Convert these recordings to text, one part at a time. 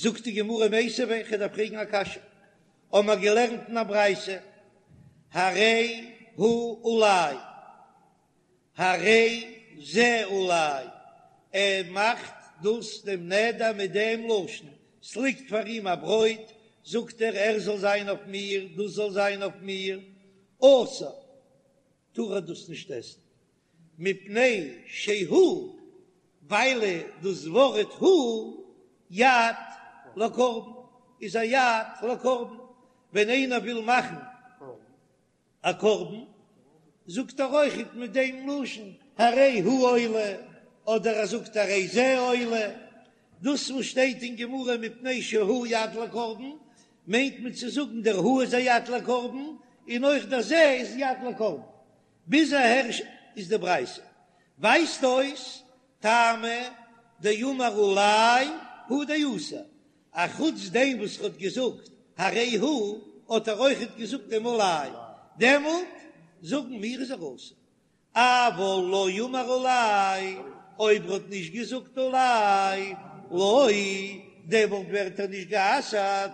זאגט די גמרא מיתיבי, כ'דארף פרעגן א קשיא, האבן מיר געלערנט אין א ברייתא, הרי הוא עלי, הרי זה עלי, ער מאכט דאס דעם נדר מיט דעם לשון, ס'ליגט פאר אים א ברויט, זאגט ער, ער זאל זיין אויף מיר, דאס זאל זיין אויף מיר, אסור, טאר ער דאס נישט עסן, מפני שהוא, ווייל דאס ווארט הוא יד לקרבן איז א יד לקרבן, ווען איינער וויל מאכן א קרבן זאגט ער אויכעט מיט דעם לשון הרי הוא עולה, אדער ער זאגט הרי זה עולה, דאס וואס שטייט אין גמרא מפני שהוא יד לקרבן מיינט מען צו זאגן דער הוא איז א יד לקרבן און אויך דער זה איז יד לקרבן. ביז אהער איז די ברייתא. ווייזט אויס טעמא דאמר עלי הוא דאסור, א חוץ דעם וואס ער האט געזאגט הרי הוא האט ער אויכעט געזאגט דעם עלי, דעמאלט זאגן מיר איז ער אסור. אבל לא אמר עלי, אויב ער האט נישט געזאגט עלי, לא, דעמאלט ווערט ער נישט גע'אסר'ט,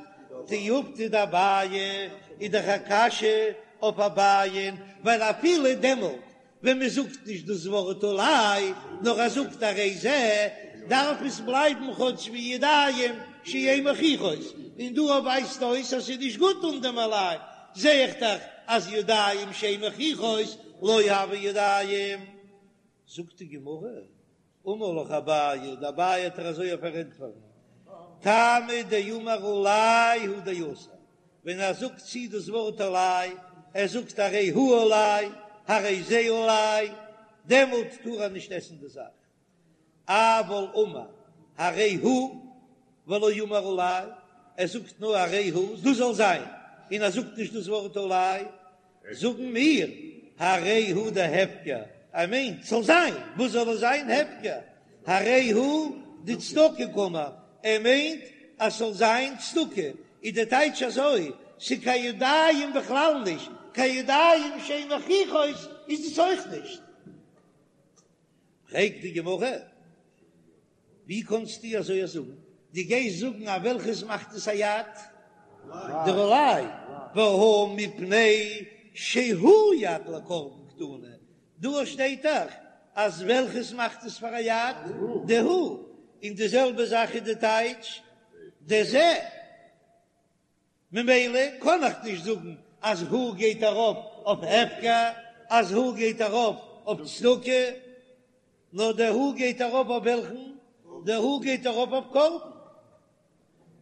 תיובתא דאביי איז דאך א קשיא אויף אביי'ן, ווייל אפילו דעמאלט ווען מען זאגט נישט דאס ווארט עלי, נאר ער זאגט הרי זה, דארף עס בלייבן כאטש ווי ידיים שאין מוכיחות, און דא ווייזט אויס אז ס'איז נישט גוט אן דעם עלי, זע איך דאך אז ידיים שאין מוכיחות לא הוו ידיים. זאגט די גמרא, אמר לך אביי, די אביי וועט דיר אזוי פארענטפערן, טעמא דאמר עלי הוא דאסור, ווען ער זאגט צו דאס ווארט עלי, ער זאגט הרי הוא עלי, הרי זה עלי, דעמאלט טאר ער נישט עסן די זאך. אבל אמר הרי הוא ולא אמר עלי, ער זאגט נאר הרי הוא, דאס זאל זיין, און ער זאגט נישט דאס ווארט עלי, זאגן מיר הרי הוא דהפקר, ער מיינט ס'זאל זיין, וואס זאל עס זיין הפקר, הרי הוא דצדקה קאמר, ער מיינט אז ס'זאל זיין צדקה, איז די טייטש אזוי, ס'קיין ידיים בכלל נישט, קיין ידיים שאין מוכיחות איז עס אויך נישט. פרעגט די גמרא, ווי קאנסטו אזוי זאגן? דו גייסט זאגן אז וועלכעס מאכט עס א יד? דער עלי, והא מפני שהוא יד לקרבן קתני, דא שטייט דאך אז וועלכעס מאכט עס פאר א יד? די הוא, און די זעלבע זאך איז די טייטש די זה. ממילא קען איך נישט זאגן אז הוא גייט ארויף אויף הפקר, אז הוא גייט ארויף אויף צדקה, נאר דער הוא גייט ארויף אויף וועלכן? דער הוא גייט ארויף אויף קרבן.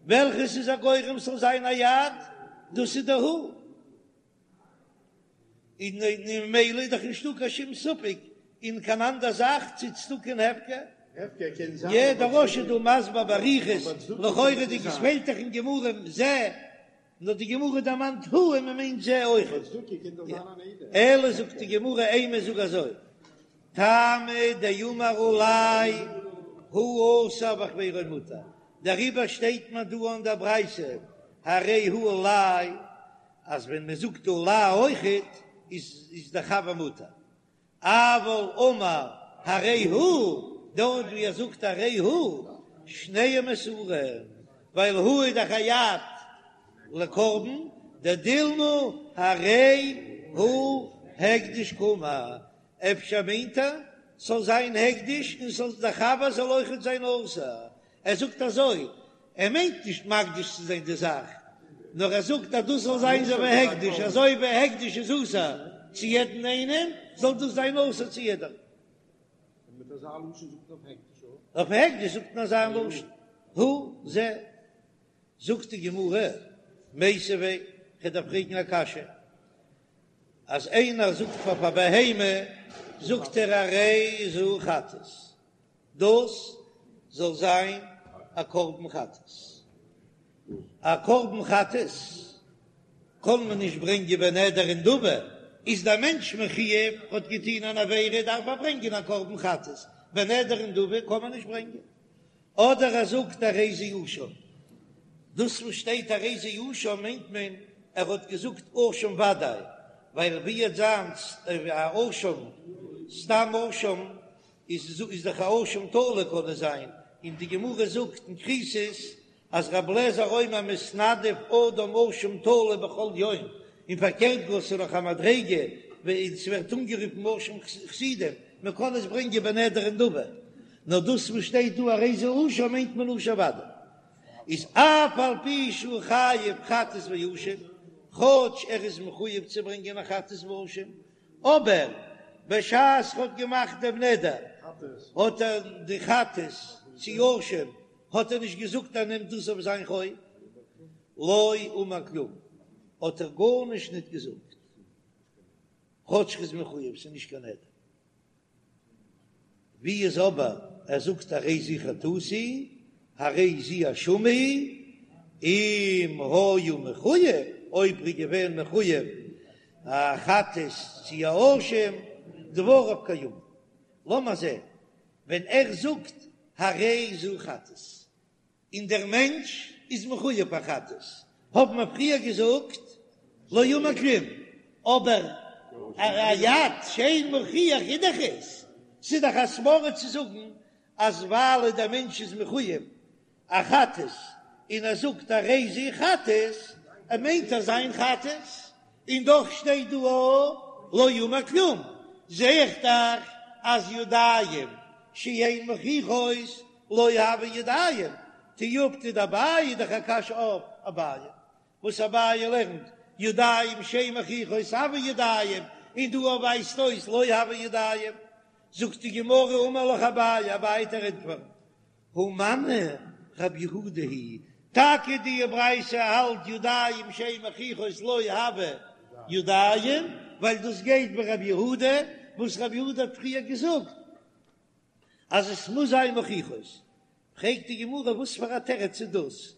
וועלכעס איז א גורם ס'זאל זיין א יד? דאס איז דער הוא. און ממילא איז דאך נישטא קיין שום ספק אין קיין אנדער זאך צו צדקה און הפקר. יע, דער רא"ש איז דא מסביר באריכות, לכאורה'דיג עס פעלט דאך אין גמרא זה, נאר די גמרא דערמאנט הוא און מען מיינט זה אויך. אלא זאגט די גמרא אימא זאג אזוי, טעמא דאמר עלי הוא אסור וחבירו מותר, דעריבער שטייט מען דא אין דער ברייתא הרי הוא עלי אז ווען מען זאגט עלי אויכעט איז איז דער חבר מותר, אבל אמר הרי הוא, דארט ווי ער זאגט הרי הוא, שניהם אסורים, ווייל הוא איז דאך א יד לקרבן, דדילמא הרי הוא הקדש קאמר, אפשר מיינט ער ס'זאל זיין הקדש און ס'זאל דער חבר זאל אויכעט זיין אסור, ער זאגט אזוי, ער מיינט נישט מקדיש צו זיין די זאך, נאר ער זאגט אז דאס זאל זיין אזוי ווי הקדש, אזוי ווי הקדש איז אסור צו יעדן איינעם, זאל דאס זיין אסור צו יעדעם. אויף הקדש זאגט מען אזא לשון, הוא זה. זאגט די גמרא, מיתיבי, כ'דארף פרעגן א קשיא, אז איינער זאגט פאר א בהמה, זאגט ער הרי זו חטאת, דאס זאל זיין א קרבן חטאת. א קרבן חטאת קען מען נישט ברענגען בנדר ונדבה, איז דער מענטש מחויב, האט געטון אן עבירה דארף ער ברענגען א קרבן חטאת, בנדר ונדבה קען מען נישט ברענגען. אדער ער זאגט הרי זה אשם, דאס וואס שטייט הרי זה אשם מיינט מען ער האט געזאגט אשם ודאי, ווייל ווי עט זיין א אשם סתם אשם איז איז דאך א אשם תלוי קען עס זיין, און די גמרא זאגט אין כריתות. אז רבי אליעזר אומר מתנדב אדם אשם תלוי בכל יום, און פארקערט גאר ס'איז נאך א מדריגה ווען ס'ווערט אנגערופן אשם חסידים, מען קען עס ברענגען בנדר ונדבה, נאר דאס וואס שטייט דא הרי זה אשם מיינט מען אשם ודאי איז אף על פי שהוא חייב חטאת ואשם, כאטש ער איז מחויב צו ברענגען א חטאת ואשם, אבער בשעת ר'האט געמאכט דעם נדר האט ער די חטאת צו אשם האט ער נישט געזאגט ער נעמט דאס אויף זיין חוב, לא אמר כלום האט ער גארנישט ניט געזאגט, כאטש ר'איז מחויב ס'איז נישט קיין נדר. ווי איז אבער ער זאגט הרי זו חטאתי הרי זו אשמי, אם היה מחויב, אויב ר'איז געווען מחויב א חטאת צו א אשם, דבריו קיימין. לאמיר זען ווען ער זאגט הרי זו חטאת, און דער מענטש איז מחויב פאר חטאת, האבן מיר פריער געזאגט לא אמר כלום, אבער א יד שאין מוכיח איז דאך עס, ס'איז דאך א סברא צו זאגן אז ווייל דער מענטש איז מחויב א חטאת און ער זאגט הרי זו חטאת, ער מיינט אז זיין חטאת, און דאך שטייט דא לא אמר כלום, זע איך דאך אז ידיים שאין מוכיחות לא הוו ידיים, תיובתא דאביי איז דאך א קשיא אויף אביי, וואס אביי לערנט ידיים שאין מוכיחות הוו ידיים, און דא ווייזט אויס לא הוו ידיים, זאגט די גמרא אמר לך אביי, אביי וועט דיר ענטפערן, הא מני רב יהודה היא, טאקע די ברייתא האלט ידיים שאין מוכיחות לא הוו ידיים, ווייל דאס גייט ווי רב יהודה, וואס רב יהודה האט פריער געזאגט אז עס מוז זיין מוכיחות, פרעגט די גמרא וואס פאר א תירוץ איז דאס,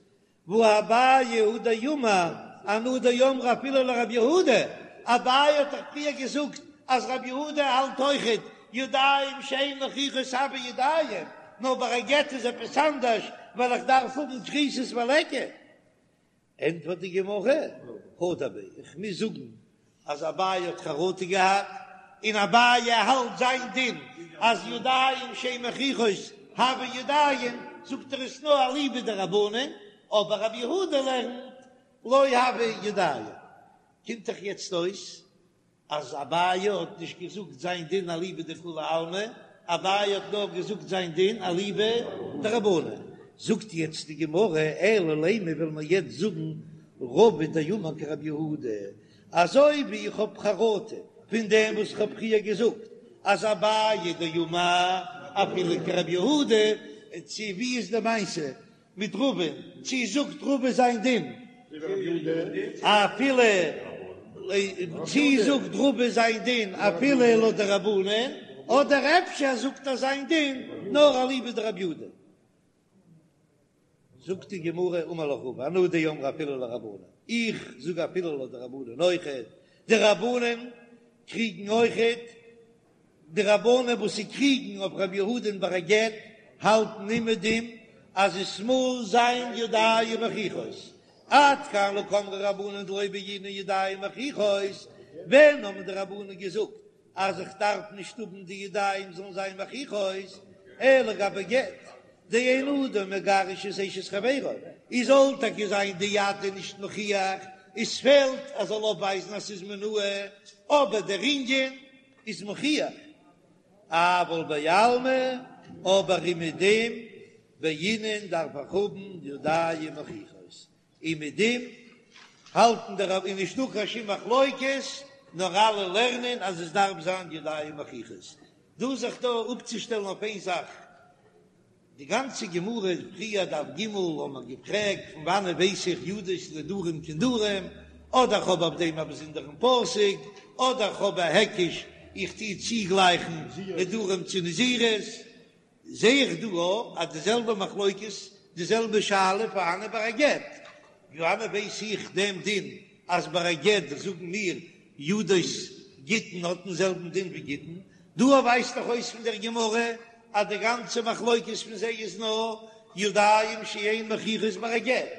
והא אביי הוא דאמר אנא דאמרי אפילו לרב יהודה, אביי האט דאך פריער געזאגט אז רב יהודה האלט אויכעט ידיים שאין מוכיחות הוו ידיים, נאר ביי א גט איז עפעס אנדערש ווייל איך דארף האבן כריתות וליכא. ענטפערט די גמרא, הדר ביה, איך מוז זאגן אז אביי האט חרטה געהאט, און אביי האלט זיין דין אז ידיים שאין מוכיחות הוו ידיים, זאגט ער עס נאר אליבא דרבנן, אבער רבי יהודה לערנט לא הוו ידיים. קומט דאך יעצט אויס אז אביי האט נישט געזאגט זיין דין אליבא דכולי עלמא, אביי האט נאר געזאגט זיין דין אליבא דרבנן. זאגט יעצט די גמרא, אלא לימא וועלן מיר יעצט זאגן רבא דאמר כרבי יהודה, אזוי ווי איך האב חרטה פון דעם וואס איך האב פריער געזאגט אז אביי דאמר אפילו כרבי יהודה, צו ווי איז די מעשה מיט רבא, צו זאגט רבא זיין דין אפילו, צו זאגט רבא זיין דין אפילו לויט די רבנן, אדער אפשר זאגט ער זיין דין נאר אליבא דרבי יהודה. זאגט די גמרא אמר לך רבא אנא דאמרי אפילו לרבנן, איך זאג אפילו לויט די רבנן אויכעט, די רבנן קריגן אויכעט, די רבנן וואס זיי קריגן אויף רבי יהודה'ן ביי א גט האלטן אומעדום אז עס מוז זיין ידיים מוכיחות, עד כאן לא קאמרי רבנן דלא בעינן ידיים מוכיחות, ווען האבן די רבנן געזאגט אז איך דארף נישט האבן די ידיים זאלן זיין מוכיחות, אלא גבי גט, דאין אדם מגרש את אשת חברו, איז זאל טאקע זיין די יד איז נישט מוכיח, עס פעלט אז זאל אויפווייזן אז ס'איז מינאה, אבער דער ענין איז מוכיח, אבל בעלמא, אבער אומעדום בעינן דארף איך האבן ידיים מוכיחות, אומעדום האלטן די רב איז נישטא קיין שום מחלוקת, נאר אלע לערנען אז עס דארף זיין ידיים מוכיחות. דא זיך דא אפצושטעלן אויף איין זאך, די גאנצע גמרא פריער דף ג האט מען געפרעגט פון וואנען ווייס איך ידות נדרים כנדרים, אדער כ'האב אויף דעם א באזונדערן פסוק, אדער כ'האב א היקש איך טוה צוגלייכן נדרים צו נזירות, זע איך דא אויך אז די זעלבע מחלוקת, די זעלבע שאלה פארהאנען ביי א גט, ווי וואנען ווייס איך דעם דין אז ביי א גט זאגן מיר ידות גיטין האט דעם זעלבן דין ווי גיטין, דא ווייזט דאך אויס פון דער גמרא אז די גאנצע מחלוקת פון זיי איז נאר ידיים שאין מוכיחות ביי א גט,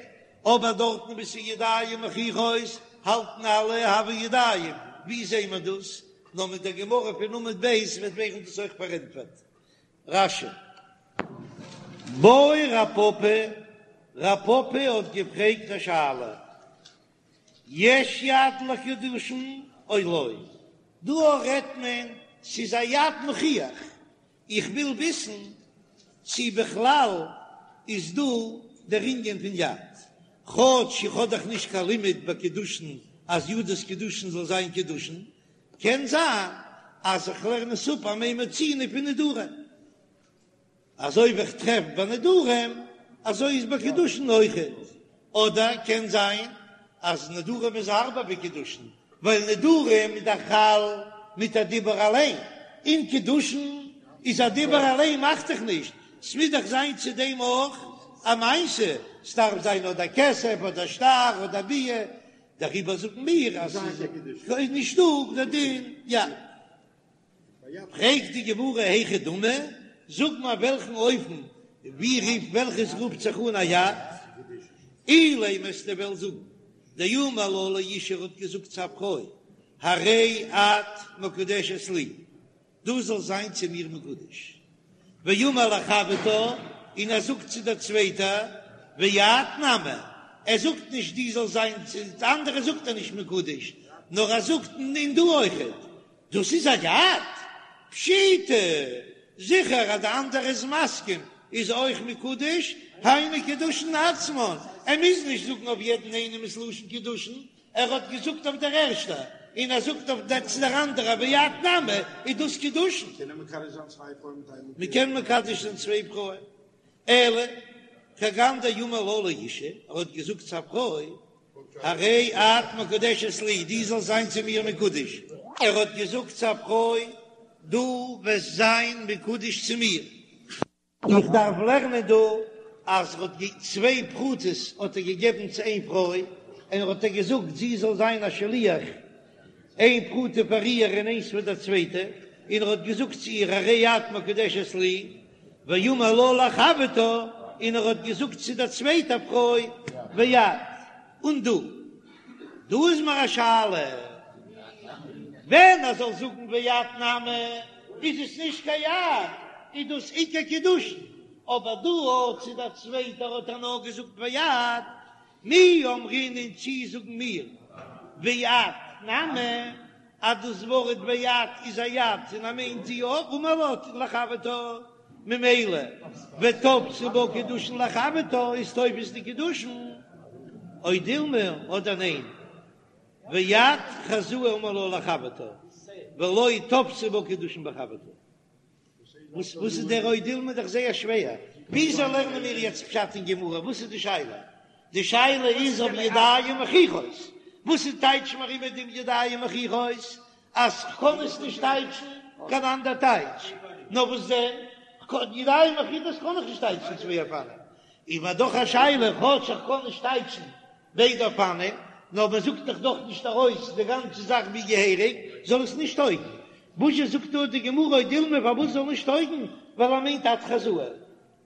אבער דארטן וואו ס'איז ידיים מוכיחות האלטן אלע הוו ידיים, ווי זעהן מיר דאס? נאר מיט דער גמרא פון עמוד ב' וועט ווערן דאס אויך פארענטפערט. רש"י. בעי רב פפא. רב פפא האט געפרעגט א שאלה, יש יד לקידושין או לא? דא רעדט מען ס'איז א יד מוכיח, איך וויל וויסן צי בכלל איז דא דער ענין פון יד, כאטש איך האב דאך נישט קיין לימוד ביי קידושין אז ידות קידושין זאל זיין קידושין, קען זיין אז איך לערן עס אפ א מה מצינו פון נדרים. אזוי ווי איך טרעף ביי נדרים, אזוי איז ביי קידושין אויכעט. אדער קען זיין אז נדרים איז הארבער ווי קידושין, ווייל נדרים איז דאך חל מיט א דיבור אליין, און קידושין איז א דיבור אליין מאכט דאך נישט, ס'מוז דאך זיין צו דעם אויך א מעשה, ס'דארף זיין אדער כסף אדער שטר אדער ביאה, דעריבער זאגן מיר אז ס'איז נישטא דער דין יד. פרעגט די גמרא היכי דמי, זאג מיר וועלכן אופן ווי רופט וועלכעס רופט זיך אן א יד, אילימא וועסטו וועלן זאגן דאמר לה לאשה ער האט געזאגט צו א פרוי הרי את מקודשת לי, דו זאלסט זיין צו מיר מקודש, ואמר לחברתה, און ער זאגט צו דער צווייטער ואת נמי, ער זאגט נישט דו זאלסט זיין צו די אנדערע זאגט ער נישט מקודש, נאר ער זאגט און דו אויכעט, דאס איז א יד? פשיטא! זיכער אז די אנדערע איז מסכים איז אויך מקודש, היינו קידושין עצמן, ער מוז נישט זאגן אויף יעדן איינעם ס'לשון קידושין, ער האט געזאגט אויף דער ערשטע און ער זאגט אויף דער צו דער אנדערע ואת נמי, איז דאס קידושין. מ'קען מקדש זיין צוויי פרויען. אלא כגון דאמר לה לאשה, ער האט געזאגט צו א פרוי, הרי את מקודשת לי, דו זאלסט זיין צו מיר מקודש. ער האט געזאגט צו א פרוי, דו וועסט זיין מקודש צו מיר. איך דארף לערנען דא אז ער האט צוויי פרוטות האט ער געגעבן צו איין פרוי, און ער האט איר געזאגט זי זאל זיין א שליח, איין פרוטה פאר איר און איינס פאר דער צווייטע, און ער האט געזאגט צו איר הרי את מקודשת לי, ואמר לה לחברתה, און ער האט געזאגט צו דער צווייטער פרוי ואת, און דו. דא איז מיר א שאלה, ווען ער זאל זאגן ואת נמי, איז עס נישט קיין יד, איז דאס עיקר קידושין, אבער דא אויך צו דער צווייטער האט ער נאר געזאגט ואת, מי אמרינן צי זאגן מיר ואת נמי אז דאס ווארט ואת איז א יד און ער מיינט זי אויך אמר לה לחברתה ממילא ותפסי בה קידושין לחברתה איז תופס די קידושין או דילמא אדער ניין ואת חזאי אמר לה לחברתה ולא תפסי בה קידושין בחברתה. וואס וואס איז דער או דילמא דאך זייער שווער, וויאזוי לערנען מיר יעצט פשט אין גמרא, וואס איז די שאלה? די שאלה איז אויף ידיים מוכיחות, וואס איז טייטש מיר איבער דעם ידיים מוכיחות, אז כ'קען עס נישט טייטשן קיין אנדער טייטש, נאר וואס דען, ידיים מוכיחות קען איך נישט טייטשן צוויי אופנים, איז מיר דאך א שאלה, כאטש איך קען נישט טייטשן ביידע אופנים, נאר מען זאגט דאך דאך נישט ארויס די גאנצע זאך ווי געהעריג, זאל עס נישט טויגן. וואזשע זאגט דא די גמרא או דילמא פארוואס זאל נישט טויגן, ווייל ער מיינט את חזאי,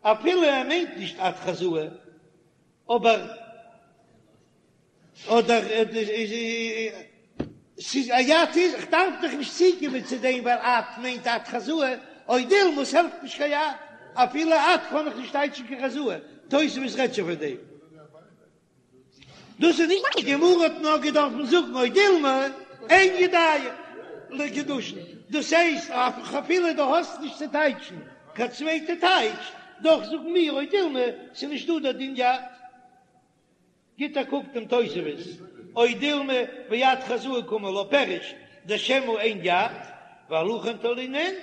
אפילו ער מיינט נישט את חזאי, אבער אדער ס'איז א יד איז, איך דארף דאך נישט צוקומען צו דעם ווייל את מיינט את חזאי, או דילמא ס'העלפט נישט קיין יד, אפילו את קען איך נישט טייטשן קיין חזאי, תוספות רעדט שוין פון דעם. דאס איז נישט די גמרא האט נאר געדארפן זאגן או דילמא אין ידיים לקידושין, דאס הייסט אפילו דו האסט נישט צו טייטשן קיין צווייטע טייטש, דאך זאגן מיר או דילמא ס'איז נישט דא דער דין יד. גיט א קוק דעם תוספות, או דילמא ואת חזאי קאמר לה פירוש דשמא אין יד, ועל הכן תלינן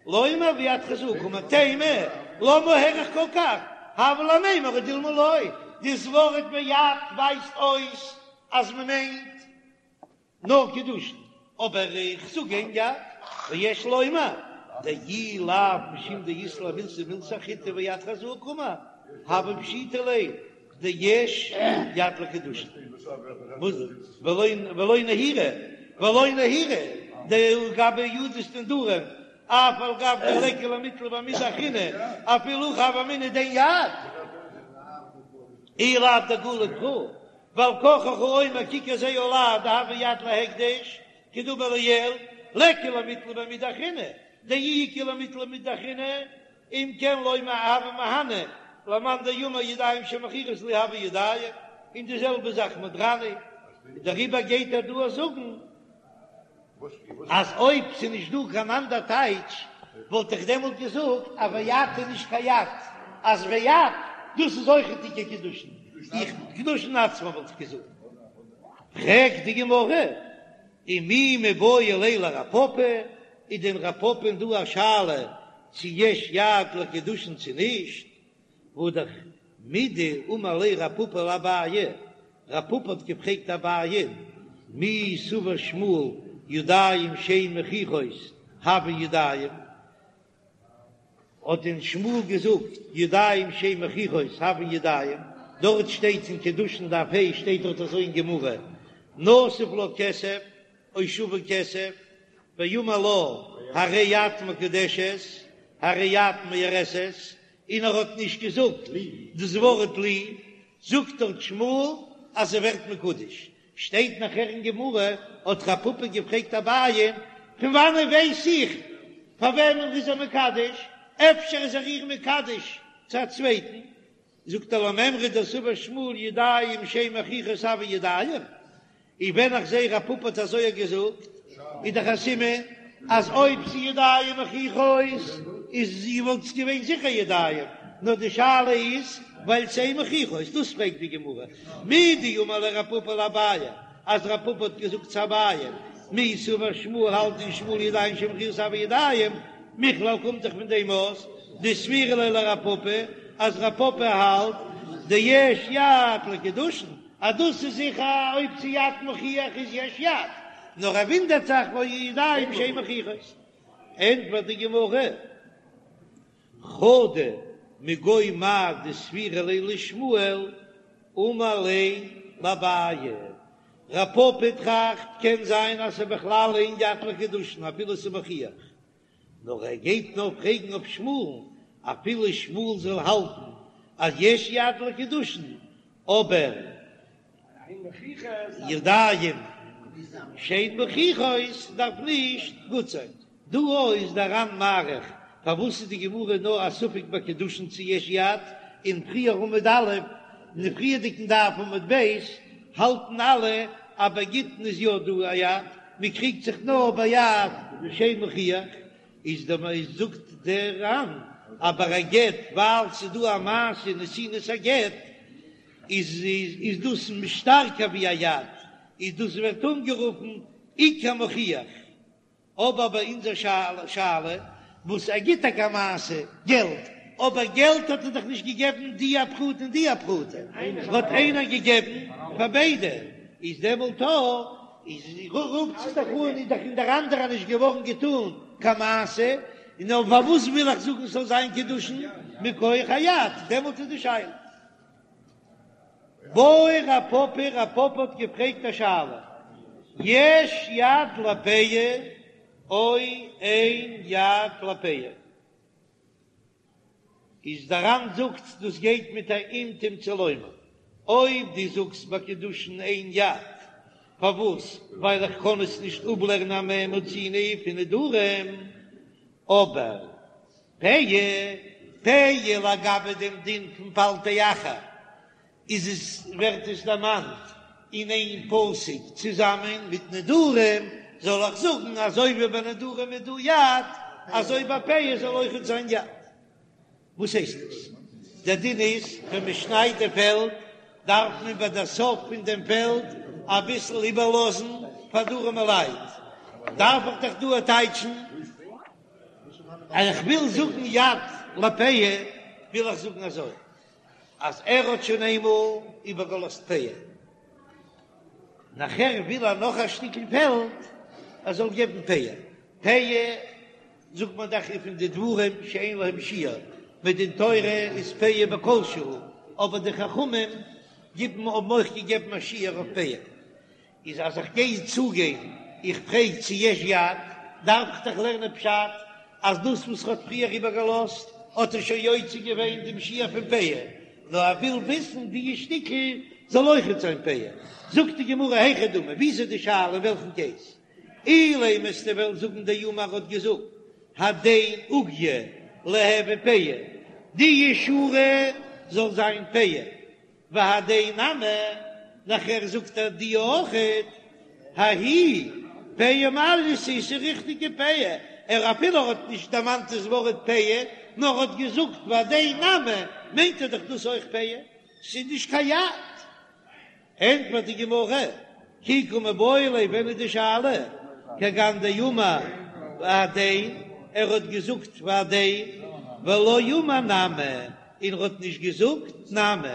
לומר ואת חזאי קאמר תימה, למה האריך כל כך, הבה למימר או דילמא לא, דאס ווארט ואת ווייזט אויס אז מען מיינט נאר קידושין, אבער איך זאג אין יד, ויש לומר דאי לאו משום דאית ליה מילתא מילתא אחריתי ואת חזאי קאמר, הוה פשיטא ליה דיש יד לקידושין, ולא נהירא, ולא נהירא דלגבי ידות דנדרים, אף על גב דליכא למיתלא במידי אחרינא, אפילו הכי הוה אמינא דאין יד, אי לאו דגלי קרא, ועל כרחך אומר ככר זה עלי דהוי יד להקדש, כדאמר לעיל, ליכא למיתלא במידי אחרינא, דאי איכא למיתלא במידי אחרינא, אם כן לומר הוה מהני. למאן דאמר ידיים שמוכיחות לי הוו ידיים, און די זעלבע זאך מודרני, דעריבער גייט ער דא זאגן אז אויב ס'איז נישט דא קיין אנדער טייטש וואלט איך דעמאלט געזאגט אז ואת איז נישט קיין יד, אז ואת דאס איז אויכעט עיקר קידושין, איך קידושין עצמן וואלט איך געזאגט. פרעגט די גמרא, ומי מיבעי ליה לרב פפא, איז דען רב פפא'ן דא א שאלה צו יש יד לקידושין צו נישט? והא דאך מדאמר ליה רב פפא לאביי, רב פפא האט געפרעגט אביי, מי סבר שמואל ידיים שאין מוכיחות הויין ידיים, האט דען שמואל געזאגט ידיים שאין מוכיחות הויין ידיים, דארט שטייט אין קידושין דף ה' שטייט דארט אזוי אין גמרא, נתב לה כסף או שווה כסף, ואמר לה הרי את מקודשת הרי את מאורסת, און ער האט נישט געזאגט דאס ווארט לי, זאגט דארט שמואל אז זי ווערט מקודש, שטייט נאכער אין גמרא האט רב פפא געפרעגט אביי פון וואנען ווייס איך פאר וועמען איז ער מקדש, אפשר איז ער איר מקדש צו א צווייטן, זאגט ער למימרא דסבר שמואל ידיים שאין מוכיחות הויין ידיים, און ווען איך זעה רב פפא האט אזוי געזאגט איז דאך א סימן אז אויב ס'איז ידיים מוכיחות איז וואלט עס געווען זיכער ידיים, נאר די שאלה איז ווייל ס'אין מוכיחות, דאס פרעגט די גמרא, מדאמר ליה רב פפא לאביי, אז רב פפא האט געזאגט צו אביי, מי סבר שמואל האלט דען שמואל ידיים שאין מוכיחות הויין ידיים, מכלל קומט דאך פון דעם אויס דסבירא ליה לרב פפא אז רב פפא האלט דיש יד לקידושין. אז דאס איז זיכער אויב ס'איז יד מוכיח איז יש יד, נאר ער ווינדערט זיך והא ידיים שאין מוכיחות. ענטפערט די גמרא, חדא מגו מאי דסבירא ליה לשמואל אמר ליה לאביי, רב פפא טראכט קען זיין אז ס'איז בכלל אין יד לקידושין אפילו ס'איז מוכיח, נאר ער גייט נאר פרעגן אויף שמואל'ן, אפילו שמואל זאל האלטן אז יש יד לקידושין, אבער ידיים שאין מוכיחות דארף נישט גוט זיין. דא איז דער ר"ן מאריך פארוואס איז די גמרא נאר א ספק ביי קידושין צו יש יד, און פריער עמוד א', אין די פריערדיגן דף עמוד ב', האלטן אלע אז ביי גיטין איז יא דא א יד, מען קריגט זיך נאר ביי יד שאין מוכיח, איז דער איז זאגט דער ר"ן אז ביי א גט ווייל ס'איז דא א מעשה נתינת הגט איז איז דאס שטארקער ווי א יד, איז דאס ווערט אנגערופן עיקר מוכיח. אבער ביי אונזער שאלה וואס ער גיט טאקע א מעשה געלט, אבער געלט האט ער דאך נישט געגעבן די א פרוטה און די א פרוטה, האט איינער געגעבן פאר ביידע, איז דעמאלט איז רופט זיך דאך אן איז דאך אין דער אנדערע נישט געווארן געטאן קיין מעשה, און אויף פארוואס וויל איך זאגן ס'זאל זיין קידושין מכח היד, דעמאלט איז די שאלה. בעי רב פפא, רב פפא האט געפרעגט א שאלה, יש יד לפאה או אין יד לפאה? איז דער ר"ן זאגט דאס גייט מיט א אם תמצא לומר, אויב דו זאגסט ביי קידושין אין יד, פארוואס? ווייל איך קען עס נישט אפלערנען א מה מצינו פון נדרים, אבער פאה, פאה לגבי דעם דין פון פלטי אחר איז עס ווערט עס דערמאנט אין איין פסוק צוזאמען מיט נדרים, זאל איך זאגן אזוי ווי ביי נדרים איז דא יד, אזוי ביי פאה זאל אויכעט זיין יד. וואס הייסט עס? דער דין איז ווען מען שניידט די פעלד דארף מען ביי דער סוף פון דעם פעלד אביסל איבערלאזן פאר די ארעמע לייט, דארף איך דאך דא טייטשן אז איך וויל זאגן יד לפאה, וויל איך זאגן אזוי, אז ער האט שוין איינמאל איבערגעלאזט פאה, נאכער וויל ער נאך א שטיקל פעלד, ער זאל געבן פאה, פאה זאגט מען דאך איז פון די דברים שאין להם שיעור, מדין תורה איז פאה בכל שהוא, אבער די חכמים גיבן האבן אויך געגעבן א שיעור אויף פאה. איז אז איך גיי צוגיין, איך פרעג צו יש יד, דארף איך דאך לערנען פשט אז דאס וואס ר'האט פריער איבערגעלאזט האט ער שוין יוצא געווען דעם שיעור פון פאה, נאר ער וויל וויסן די שטיקל זאל אויכעט זיין פאה. זאגט די גמרא היכי דמי, ווי איז די שאלה אין וועלכן קעיס? אילימא וועסטו וועלן זאגן דאמר האט געזאגט הדין עוגיא ליהוי פאה, די שורה. זאל זיין פאה. והדין נמי, נאכער זאגט ער די אויכעט, ההיא פאה מעלייתא ס'איז ריכטיגע פאה, ער אפילו ער האט נישט דערמאנט דאס ווארט פאה, נאר האט געזאגט והדין נמי, מיינט ער דאך דאס אויך פאה, ס'איז נישט קיין יד. ענטפערט די גמרא, כי קא מיבעיא ליה, ווען איז די שאלה? כגון דאמר והדין, ער האט געזאגט והדין, ולא אמר נמי, און ער האט נישט געזאגט נמי,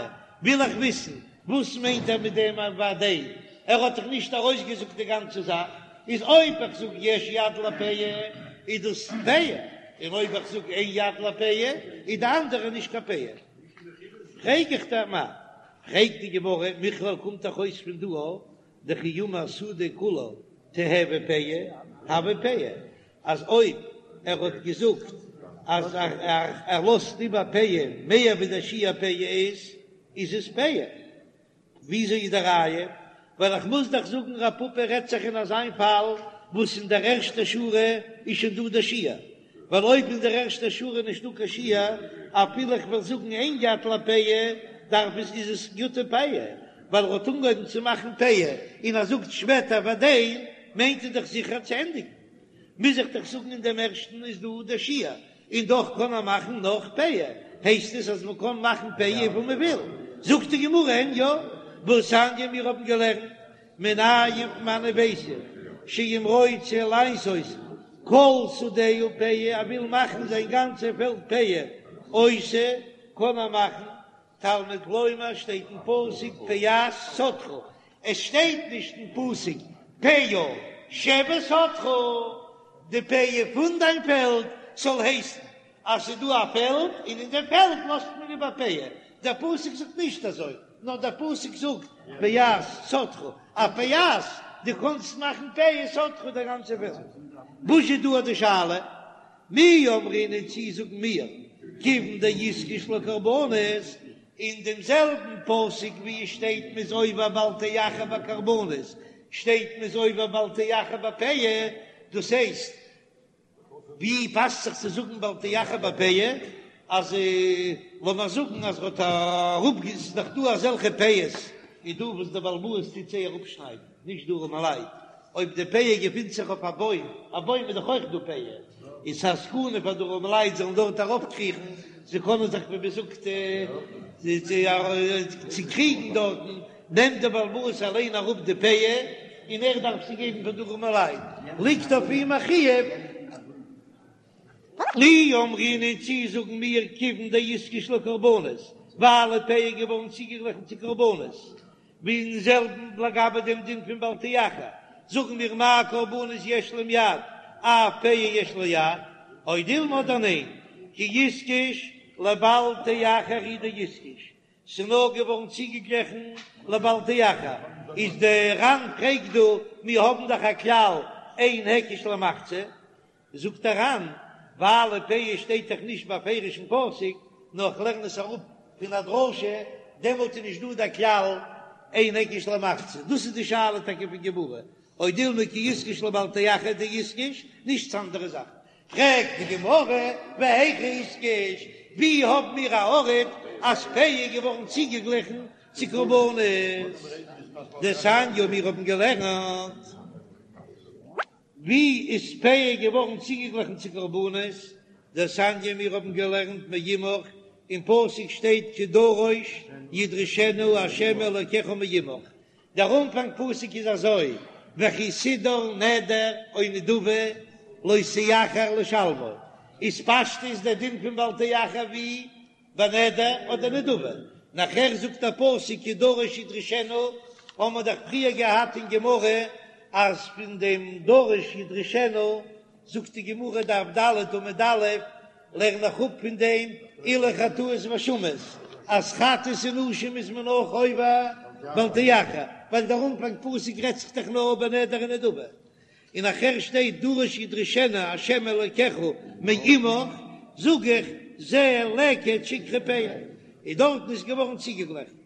וויל איך וויסן וואס מיינט ער מיט דעם והדין, ער האט דאך נישט ארויסגעזאגט די גאנצע זאך, איז אויב איך זאג יש יד לפאה איז דאס פאה, און אויב איך זאג אין יד לפאה איז די אנדערע נישט קיין פאה. פרעג איך דיר מה? פרעגט די גמרא, מכלל קומט דאך אויס פון דא דכי אמר שדה כולה תיהוי פאה, הוי פאה, אז אויב ער האט געזאגט אז ער לאזט איבער פאה מער ווי דער שיעור פאה איז, איז עס פאה. וויאזוי איז די ראיה? ווייל איך מוז דאך זאגן רב פפא רעדט זיך אין אזיין פאל וואס אין דער ערשטער שורה איז שוין דא דער שיעור, ווייל אויב אין דער ערשטער שורה איז נישטא קיין שיעור, אפילו איך וועל זאגן אין יד לפאה, דארף עס איז עס גוטע פאה, ווייל ער האט אנגעהויבן צו מאכן פאה און ער זאגט שפעטער והדין, מיינט ער דאך זיכער צו ענדיגן. מוז איך דאך זאגן אין דעם ערשטן איז דא דער שיעור, און דאך קען ער מאכן נאך פאה, הייסט עס אז מען קען מאכן פאה וויפיל מען וויל. זאגט די גמרא אין יא, והתניא מיר האבן געלערנט מנין פון וואנען ווייס איך שאם רוצה לעשות כל שדהו פאה, ער וויל מאכן זיין גאנצע פעלד פאה, עושה, קען ער מאכן, תלמוד לומר שטייט אין פסוק פאת שדך, עס שטייט נישט אין פסוק פאה שבשדך, די פאה פון דיין פעלד זאל הייסן אז ס'איז דא א פעלד און אין די פעלד לאזט מען איבער פאה, דער פסוק זאגט נישט אזוי, נאר דער פסוק זאגט פאת שדך, א פאת, דו קענסט מאכן פאה שדך די גאנצע פעלד. וואס איז דא די שאלה? מי אמרינן צי זאגן מיר כיוון דאיתקש לקרבנות, אין דעם זעלבן פסוק ווי עס שטייט מ'איז עובר בל תאחר בקרבנות, שטייט מ'איז עובר בל תאחר בפאה, דאס הייסט ווי פאסט זיך צו זאגן בל תאחר בפאה, אז לאמיר זאגן אז ער האט אראפ, ס'איז דאך דא אזעלכע פאות איז דא וואס דער בעל הבית טוט זיי אראפשניידן, נישט די ארעמעלייט, אויב די פאה געפינט זיך אויף א בוים, א בוים איז דאך אויך דא פאה, איז א סכנה פאר די ארעמעלייט זאלן דארט ארויפקריכן, זיי קענען זיך ווי מען זאגט צוקריגן דארטן, נעמט דער בעל הבית אליין אראפ די פאה און ער דארף זי געבן פאר די ארעמעלייט, ליגט אויף אים א חיוב. מי אמרינן צי זאגן מיר כיוון דאיתקש לקרבנות, ווייל פאה איז געווארן צוגעגליכן צו קרבנות, ווי אין זעלבן לגבי דעם דין פון בל תאחר, זאגן מיר מה קרבנות יש להם יד, אף פאה יש לה יד, או דילמא אדער ניין, כי איתקש לבל תאחר הוא דאיתקש, ס'איז נאר געווארן צוגעגליכן לבל תאחר, איז דער ר"ן פרעגט דא, מיר האבן דאך א כלל אין היקש למחצה, זאגט דער ר"ן, ווייל פאה שטייט דאך נישט בפירוש אין פסוק, נאר איך לערן עס אראפ פון א דרשה, דעמאלט איז נישט דא דער כלל אין היקש למחצה, דאס איז די שאלה טאקע פון גמרא, או דילמא כי איתקש לבל תאחר דאיתקש, נישט צו אנדערע זאכן. פרעגט די גמרא, והיכא איתקש, ווי האבן מיר א ארט אז פאה איז געווארן צוגעגליכן צו קרבנות? דתניא מיר האבן געלערנט. ווי איז פאה געווארן צוגעגליכן צו קרבנות? דתניא מיר האבן געלערנט מעמך, אין פסוק שטייט כי דרוש ידרשנו ה' אלוקיך מעמך, דער אנפאנג פסוק איז אזוי, וכי תדור נדר או נדבה לא תאחר לשלמו, איז פשטות דער דין פון בל תאחר ווי בנדר אדער נדבה, נאכער זאגט דער פסוק כי דרוש ידרשנו, האבן מיר דאך פריער געהאט אין גמרא אז פון דעם דרוש ידרשנו זאגט די גמרא דף ד' עמוד א', לערן איך אפ פון דעם אלו חטאות ואשמות, אז חטאת און אשם איז מען אויך עובר בל תאחר, ווייל דער אנפאנג פסוק רעדט זיך דאך נאר בנדר און נדבה, און נאכער שטייט דרוש ידרשנו ה' אלקיך מעמך, זאג איך זה לקט שכחה פאה, און דארטן איז געווארן צוגעגליכן.